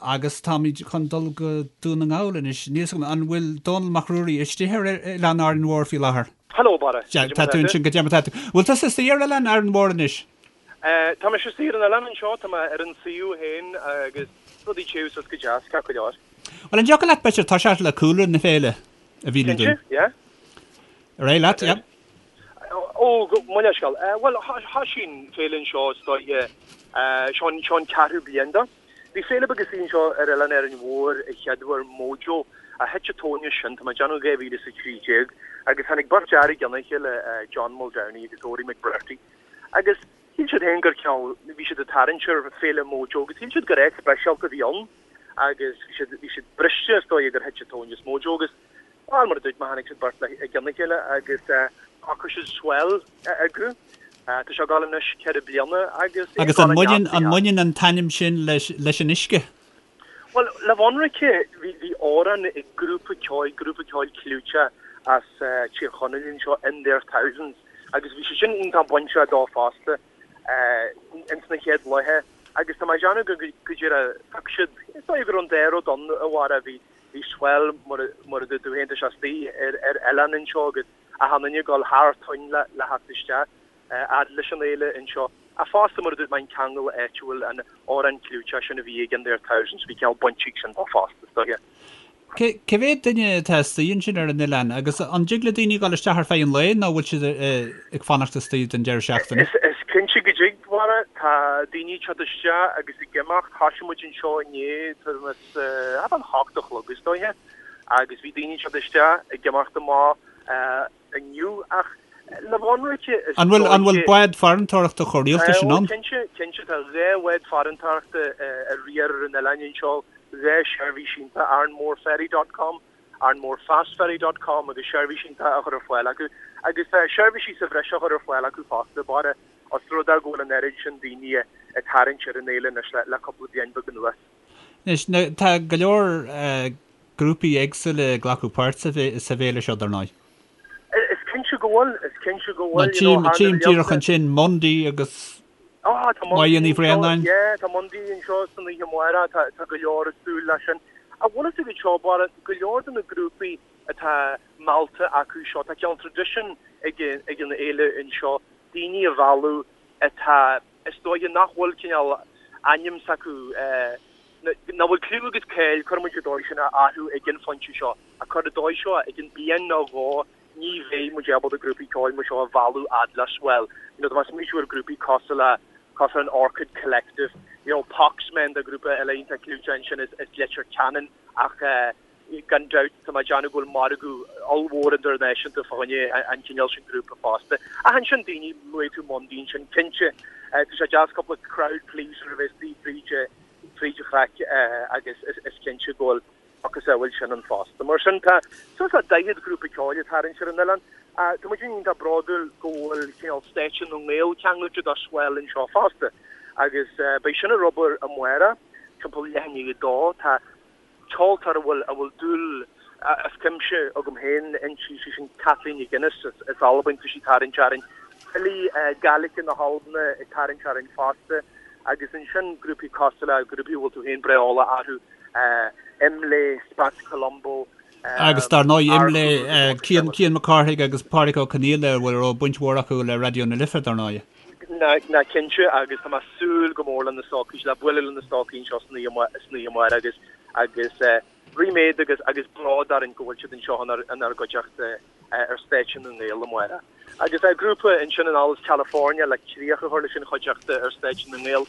Agus táimid chun dul go Dún na nGall anois. Níl 'fhios agam, an bhfuil Dónall Mac Ruairí istigh ar Oileán Árainn Mhór faoi láthair? Hello, Barra. Sea, tá tú ansin, goidé mar tá tú. Bhfuil tusa istigh ar Oileán Árainn Mhór anois? Tá mise istigh ar an oileán anseo, tá mé ar an suíomh féin agus rudaí ag téamh suas go deas, ceart go leor. Bhuel, an dtiocfadh leat, b'fhéidir, toiseacht le cúlra na féile a mhíniú dúinn? Cinnte, yeah. Ar aghaidh leat, yeah. Ó, mo leithscéal. Bhuel, thoisigh an féile anseo is dóiche, seo an ceathrú bliain de. Bhí féile beag istigh anseo ar Oileán Árainn Mhór a chéaduair, Mojo, ach thit an tóin as sin, tá mé ag déanamh 2013, agus tháinig beirt fhear i gcionn a chéile, John Muldowney agus Odhraí McBrearty, agus shíl siad féin gur cineál, bhí siad ag tarraingt ar féile Mojo agus shíl siad gur áit speisialta a bhí ann agus bhí siad, bhí siad briste is dóigh gur thit an tóin as Mojo agus Bhuel, mar a dúirt mé, tháinig siad beirt i gcionn a chéile agus shocraigh siad Swell a eagrú. Tá sé ag dul anois 4 bliana agus é ag Agus an dul i mbaineann, an mbaineann an t-ainm sin leis, leis an uisce? Bhuel, le bheith ionraice, bhí, bhí amhrán ag grúpa ceoil, grúpa ceoil clúiteach as Tír Chonaill anseo, In Their Thousands, agus bhí sé sin iontach bainteach dó fosta ins na chéad laethe agus tá mé ag déanamh go, go díreach, thug siad, is dóigh go raibh an dá rud ann a Bharra, bhí, Bhí Swell, mar a dúirt tú féin, tá sé istigh ar oileán anseo agus achan duine ag dul thar toinn le theacht isteach fhad leis an fhéile anseo. Ach fosta, mar a dúirt mé, an ceangal áitiúil, an amhrán clúiteach sin a bhí ag In Their Thousands, bhí cineál baint ag sin dó fosta, is dóiche. Cé mhéad duine atá istigh ansin ar an oileán agus an dtig le daoine dul isteach ar feadh an lae nó bhfuil siad ag fanacht istigh don deireadh seachtaine? Is cinnte go dtig, a Bharra. Tá daoine ag teacht isteach agus ag imeacht. Thoisigh muid anseo inné, tuairim is thart fán hocht a chlog is dóiche, agus bhí daoine ag teacht isteach, ag imeacht amach inniu ach le bheith ionraice is An bhfuil, an bhfuil bád farantóireachta chomh rialta sin ann? Cinnte, cinnte, tá 2 bhád farantóireachta ag riar ar an oileán anseo, 2 sheirbhís iontach, Arranmoreferry dot com, Arranmorefastferry dot com agus seirbhís iontach á chur ar fáil acu agus tá seirbhísí sa bhreis á chur ar fáil acu fosta, Barra, os rud é go bhfuil an oiread sin daoine ag tarraingt ar an fhéile anois le cúpla bliain beag anuas. Anois, tá go leor grúpaí éagsúla ag glacadh páirt sa bhféile seo, dar ndóigh. Is cinnte go bhfuil, is cinnte go bhfuil. Tchím, tchím díreach ansin Mundy agus Máire Ní Bhraonáin. Yeah, tá Mundy anseo san oíche amárach, tá go leor ag súil leis sin. Ach bhfuil fhios agat seo, Barra, go leor de na grúpaí atá meallta acu seo, tá cineál tradition ag an fhéile anseo, daoine a mhealladh atá Is dóiche nach bhfuil cineál ainm s'acu, nach bhfuil cliú agus cáil, cuirfidh muid an dóigh sin, orthu ag an phointe seo. Ach cuir an dóigh seo, i gcionn bliain nó dhó, ní bheidh muid ábalta grúpaí ceoil mar seo a mhealladh fhad le Swell. You know, tá mé ag smaoitiú ar grúpaí cosúil le, cosúil an Orchid Collective, you know, Poxmen, tá grúpa eile iontach clúiteach ansin as Leitir Ceanainn ach eh, Gan dabht, tá mé ag déanamh go bhfuil margadh ollmhór idirnáisiúnta fá choinne an chineál sin grúpa fosta. Ach ansin daoine, luaigh tú Mundy ansin, cinnte, tá sé deas cúpla crowd pleaser a bheith istigh fríd fríd an chraic agus is cinnte go bhfuil macasamhail sin ann fosta. Mar sin tá suas le 40 grúpa ceoil ag tarraingt ar an oileán. Tá muid iontach bródúil go bhfuil cineál Stáitse na nGael ceangailte do Swell anseo fosta agus beidh sin ar obair amárach timpeall leath i ndiaidh a dó. Tá ceoltóir a bhfuil a bhfuil dúil as cuimse agam féin inti, sí sin Kathleen MacInnes as Albain, tá sí ag tarraingt orainn. Filí Gaeilge na hAlban ag tarraingt orainn fosta agus ansin grúpaí cosúil le grúpaí a bhfuil tú féin breá eolach orthu, Imlé, Spats Colombo, Agus dar ndóigh Imlé, Cian Cian Mac Cárthaigh agus Pádraig Ó Conghaile a bhfuil a raibh baint mhór acu le Raidió na Life dar ndóigh. Ná cinnte agus tá mé ag súil go mór le na stócaigh, le bualadh le na stócaigh anseo san oíche amárach agus agus ríméad agus agus bród orainn go bhfuil siad anseo inár gcuideachta ar Stáitse na nGael amárach. Agus grúpa ansin anall as California le críoch a chur leis an chuideachta ar Stáitse na nGael.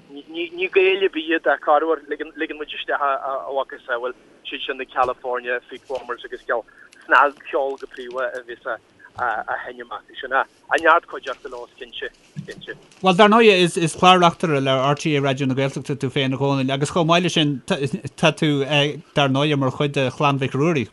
Ní Gaeil ar bith iad ach corruair ligeann muid isteach a mhacasamhail, siad sin na California Feetwarmers agus ceol snagcheol go príomha a bhíos á sheinm acu sin. A neart cuideachta leo, is cinnte, is cinnte. Bhuel, dar ndóigh, is is clár-reachtaire le RTÉ Raidió na Gaeltachta tú féin, a Dhónaill, agus chomh maith leis sin, tá tú, dar ndóigh, mar chuid de Chlann Mhic Ruairí.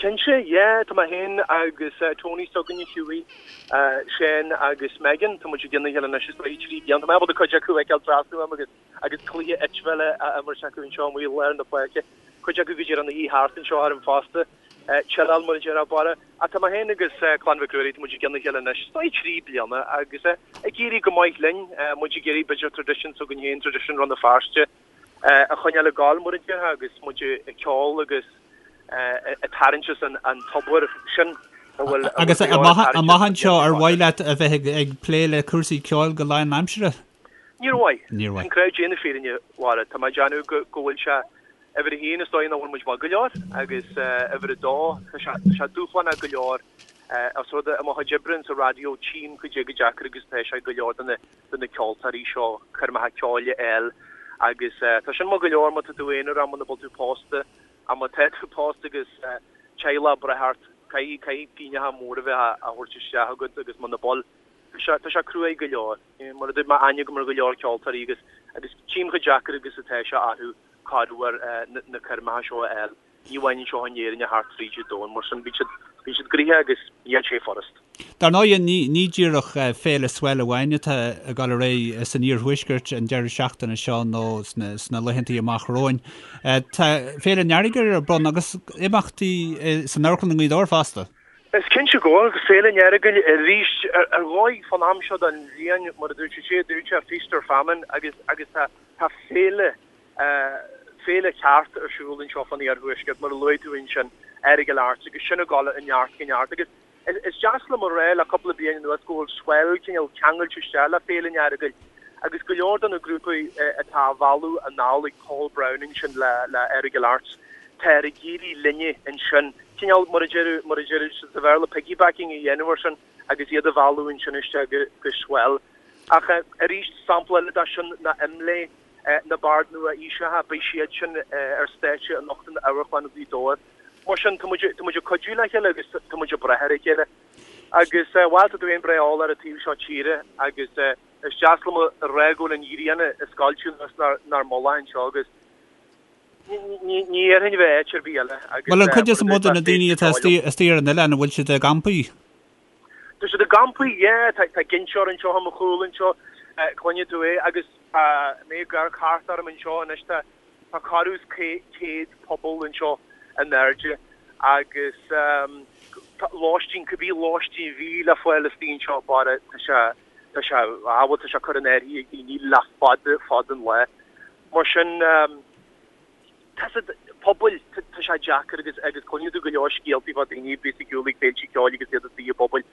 Cinnte, yeah, tá mé féin agus Tony s'againne, Hughie, Shane agus Megan, tá muid i gcionn a chéile anois is dóigh 3 bliana. Tá mé ábalta cuid acu a fheiceáil trasna uaim agus agus cluiche eitpheile á imirt acu anseo amuigh i lár na páirce. Cuid acu go díreach ina shuí thart anseo orm fosta. Chilleáil mar a déarfá, Barra. Ach tá mé féin agus Clann Mhic Ruairí, tá muid i gcionn a chéile anois, is dóigh 3 bliana agus ag éirí go maith linn. Muid ag iarraidh b'fhéidir tradition s'againn féin, tradition Rann na Feirste. A choinneáil ag gabháil mar a déarfá agus muid ag ceol agus ag tarraingt as an tobar sin a bhfuil Agus amach anseo ar mhaith leat a bheith ag plé le cúrsaí ceoil go lánaimseartha? Níor mhaith. Níor mhaith. Sin crowd déanamh fírinne, Mháire. Tá mé ag déanamh go bhfuil sé uimhir a haon is dóigh nach bhfuil muid maith go leor agus uimhir a dó tá sé tá sé dúshlánach go leor os rud é i mo chuid oibre insa raidió tchím cad é chomh deacair agus atá sé go leor de na de na ceoltóirí seo coirmeacha ceoil a fháil agus tá sin maith go leor má tá tú aonarach muna bhfuil tú pósta ach má tá tú pósta agus teaghlach ag brath ort caithfidh caithfidh pingneacha móra a bheith á thabhairt isteach agat agus muna bhfuil tá sé tá sé cruaidh go leor. Mar a dúirt mé aithne agam ar go leor ceoltóirí agus agus tchím chomh deacair agus atá sé orthu corruair na coirmeacha seo a fháil. Ní amháin anseo in Éirinn ach thart fríd an domhan, mar sin bíonn siad, bíonn siad gnoitheach agus níl sé furast. Dar ndóigh, ní, ní díreach Féile Swell amháin atá ag dul ar aghaidh san iarthuaisceart an deireadh seachtaine seo nó sna, sna laethantaí amach romhainn. Tá Féile an Earagail ar bun agus imeachtaí san Amharclann i nGaoth Dobhair fosta. Is cinnte go bhfuil, agus Féile an Earagail arís ar dhóigh fán am seo den bhliain, mar a dúirt sé, dúirt sé feast or famine agus, agus tá, tá féile Féile ceart ar siúl anseo fán iarthuaisceart, mar a luaigh tú ansin, Earagail Arts, agus sin ag dul ó neart go neart. Agus is deas liom a rá le cúpla bliain anuas go bhfuil Swell cineál ceangailte isteach le Féile an Earagail agus go leor de na grúpaí atá á mhealladh anall ag Paul Browne ansin le le Earagail Arts, táthar ag iarraidh linne ansin, cineál mar a deir mar a deir siad sa Bhéarla piggybacking a dhéanamh air sin agus iad a mhealladh ansin isteach go go Swell. Ach arís, sampla eile de sin ná Imlé. Na Baird Nua-Aoiseacha, beidh siad sin ar stáitse anocht in Amharclann Ghaoth Dobhair. Mar sin, tá muid, tá muid ag cuidiú le chéile agus tá muid ag brath ar a chéile. Agus, bhuel, tá tú féin breá eolach ar an taobh seo tíre agus is deas liom a rá go bhfuil an ghrian ag scoilteadh anuas 'nár mullach anseo agus ní, ní iarrfainn a bheith áit ar bith eile agus Bhuel, an cuid is mó de na daoine atá istigh ar an oileán, an bhfuil siad i gcampaí? Tá siad i gcampaí, yeah, tá tá ginseoir anseo i mo chúl anseo, cluinfidh tú é, agus tá mé ag amharc thart orm anseo anois, tá tá corradh is 100 puball anseo in airde agus tá lóistín, cibé lóistín a bhí le fáil istigh anseo, bara, tá sé, tá sé, ah bhuel tá sé curtha in áirithe ag daoine le fada, fada an lá. Mar sin, Tá siad, pubaill, tá sé deacair agus agus cluinfidh tú go leor scéaltaí fá daoine a bíos ag siúl ag féilte ceoil agus iad istigh i bpubaill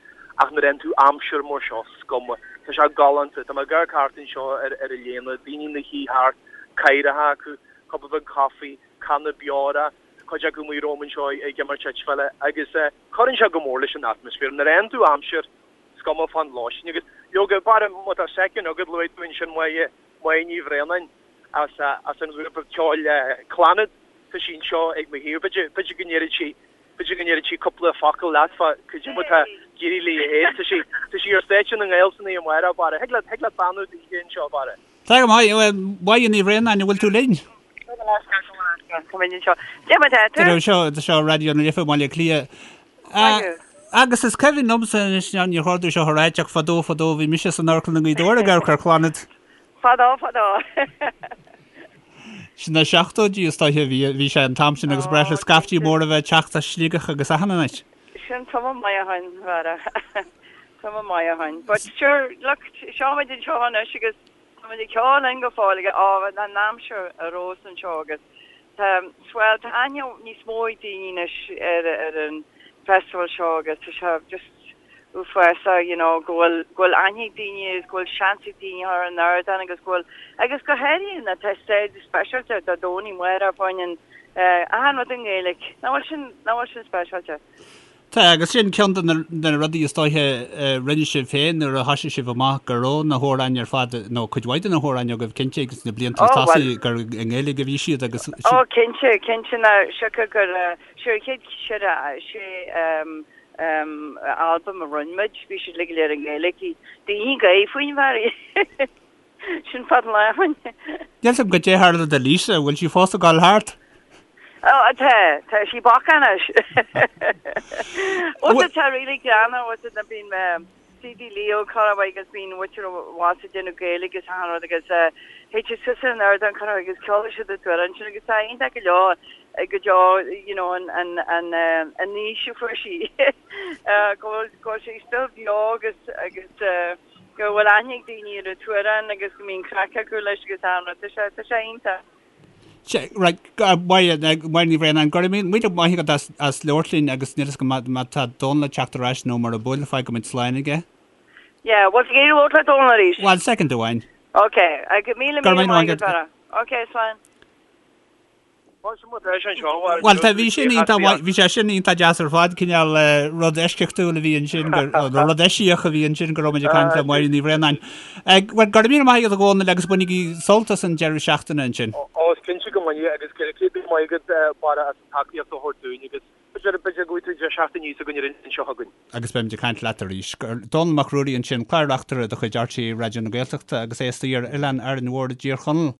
ach nuair a fhaigheann tú aimsir mar seo, is cuma. Tá sé galánta. Tá mé ag amharc thart anseo ar ar an léana, daoine ina shuí thart, cathaoireacha acu, cupa beag coffee, canna beora, cuid acu amuigh romham anseo ag imirt eitpheile agus cuireann sé go mór leis an atmaisféar. Nuair a fhaigheann tú aimsir, is cuma fán lóistín agus leoga, bara, má tá soicind agat, luaigh tú ansin Máire, Máire Ní Bhraonáin. as as an ghrúpa ceoil Clannad. Tá sí anseo ag mo thaobh. B'fhéidir b'fhéidir go ndéarfaidh sí b'fhéidir go ndéarfaidh sí cúpla focal leat fá cad é mar atá ag éirí léi féin. Tá sí tá sí ar stáitse na nGael san oíche amárach, Barra. Thig leat thig leat beannú daoithe anseo, Barra. Tá go maith. Máire Ní Bhraonáin, an bhfuil tú linn? Seo seo Raidió na Life i mBaile Átha Cliath. Agus is cuimhin liomsa anois, níor chóir domh seo a ráit ach fadó fadó bhí mise san amharclann i nGaoth Dobhair ag amharc ar Chlannad. Fadó fadó. Sna seachtóidí is dóiche a bhí, bhí sé an t-am sin agus ba ghnách le scaiftí móra a bheith ag teacht as Sligeach agus achan áit. Sin tamall maith ó shin, a Bharra. Tamall maith ó shin. But sure, look, seo muid anseo anois agus tá muid ag ceol linn go fóill agus á, an aimsir ar fheabhas anseo agus tá, well, tá aithne níos mó ag daoine anois ar, ar an festival seo agus tá sé just, uafásach you know go bhfuil go bhfuil aithne ag daoine agus go bhfuil seans ag daoine ar an ardán agus go bhfuil agus go háirithe na tá stáitse speisialta Dé Domhnaigh amárach fá choinne achan rud i nGaeilge. Nach bhfuil sin nach bhfuil sin speisialta? Tá, agus sin ceann de na rudaí is dóiche a rinne sibh féin nuair a thoisigh sibh amach go raibh na hamhráin ar fad, nó cuid mhaith de na hamhráin agaibh cinnte agus na blianta oh, tosaigh gur i nGaeilge a bhí siad agus Oh cinnte, cinnte na siocair gur sure chéad sé albam a rinne muid, bhí siad uilig go léir i nGaeilge. Daoine ag gáire faoin bhfear. Sin fad an lá ó shin. Níl 's agam goidé a tharla do Lisa, bhfuil sí fós ag dul thart? Ó, tá, tá sí bacach anois. Ó, tá really greannmhar, ó, tá bíonn CD Leo corruair agus bíonn muintir abhus ag déanamh Gaeilge agus achan rud agus théid siad suas ar an ardán corruair agus ceolfaidh siad an t-amhrán sin agus tá iontach go leor go deo you know an an an an aois a fuair sí go bhfuil go bhfuil sí still beo agus agus go bhfuil aithne ag daoine ar an t-amhrán agus go mbíonn craic acu leis agus achan rud tá sé tá sé iontach. Right, Máire, Máire Ní Bhraonáin, go raibh míle maith agat as, as labhairt linn agus níl fhios agam má tá Dónal ag teacht ar ais nó mura bhfuil, fágfaidh muid slán aige. Yeah, bhfuil tú ag iarraidh labhairt le Dónal arís? Bhuel, soicind amháin. Ok, míle míle maith agat, Barra. Ok, slán. Bhuel, tá, bhí sin iontach maith, bhí sé sin iontach deas ar fad, cineál rud eisceachtúil a bhí ansin, nó rud eisiach a bhí ansin go raibh muid ag caint le Máire Ní Bhraonáin. Bhuel, go raibh míle maith agat a Dhónaill agus bainigí sult as an deireadh seachtaine ansin. Ó, is cinnte go mbainfidh agus go raibh céad míle maith agat, Barra, as an tacaíocht a thabhairt dúinn agus b'fhéidir, b'fhéidir go bhfaighidh tú an deireadh seachtaine s'againn ar an seo chugainn. Agus beimid ag caint leat arís. Dónall Mac Ruairí ansin, Clár-Reachtaire de chuid RTÉ Raidió na Gaeltachta agus é istigh ar Oileán Árainn Mhór i dTír Chonaill.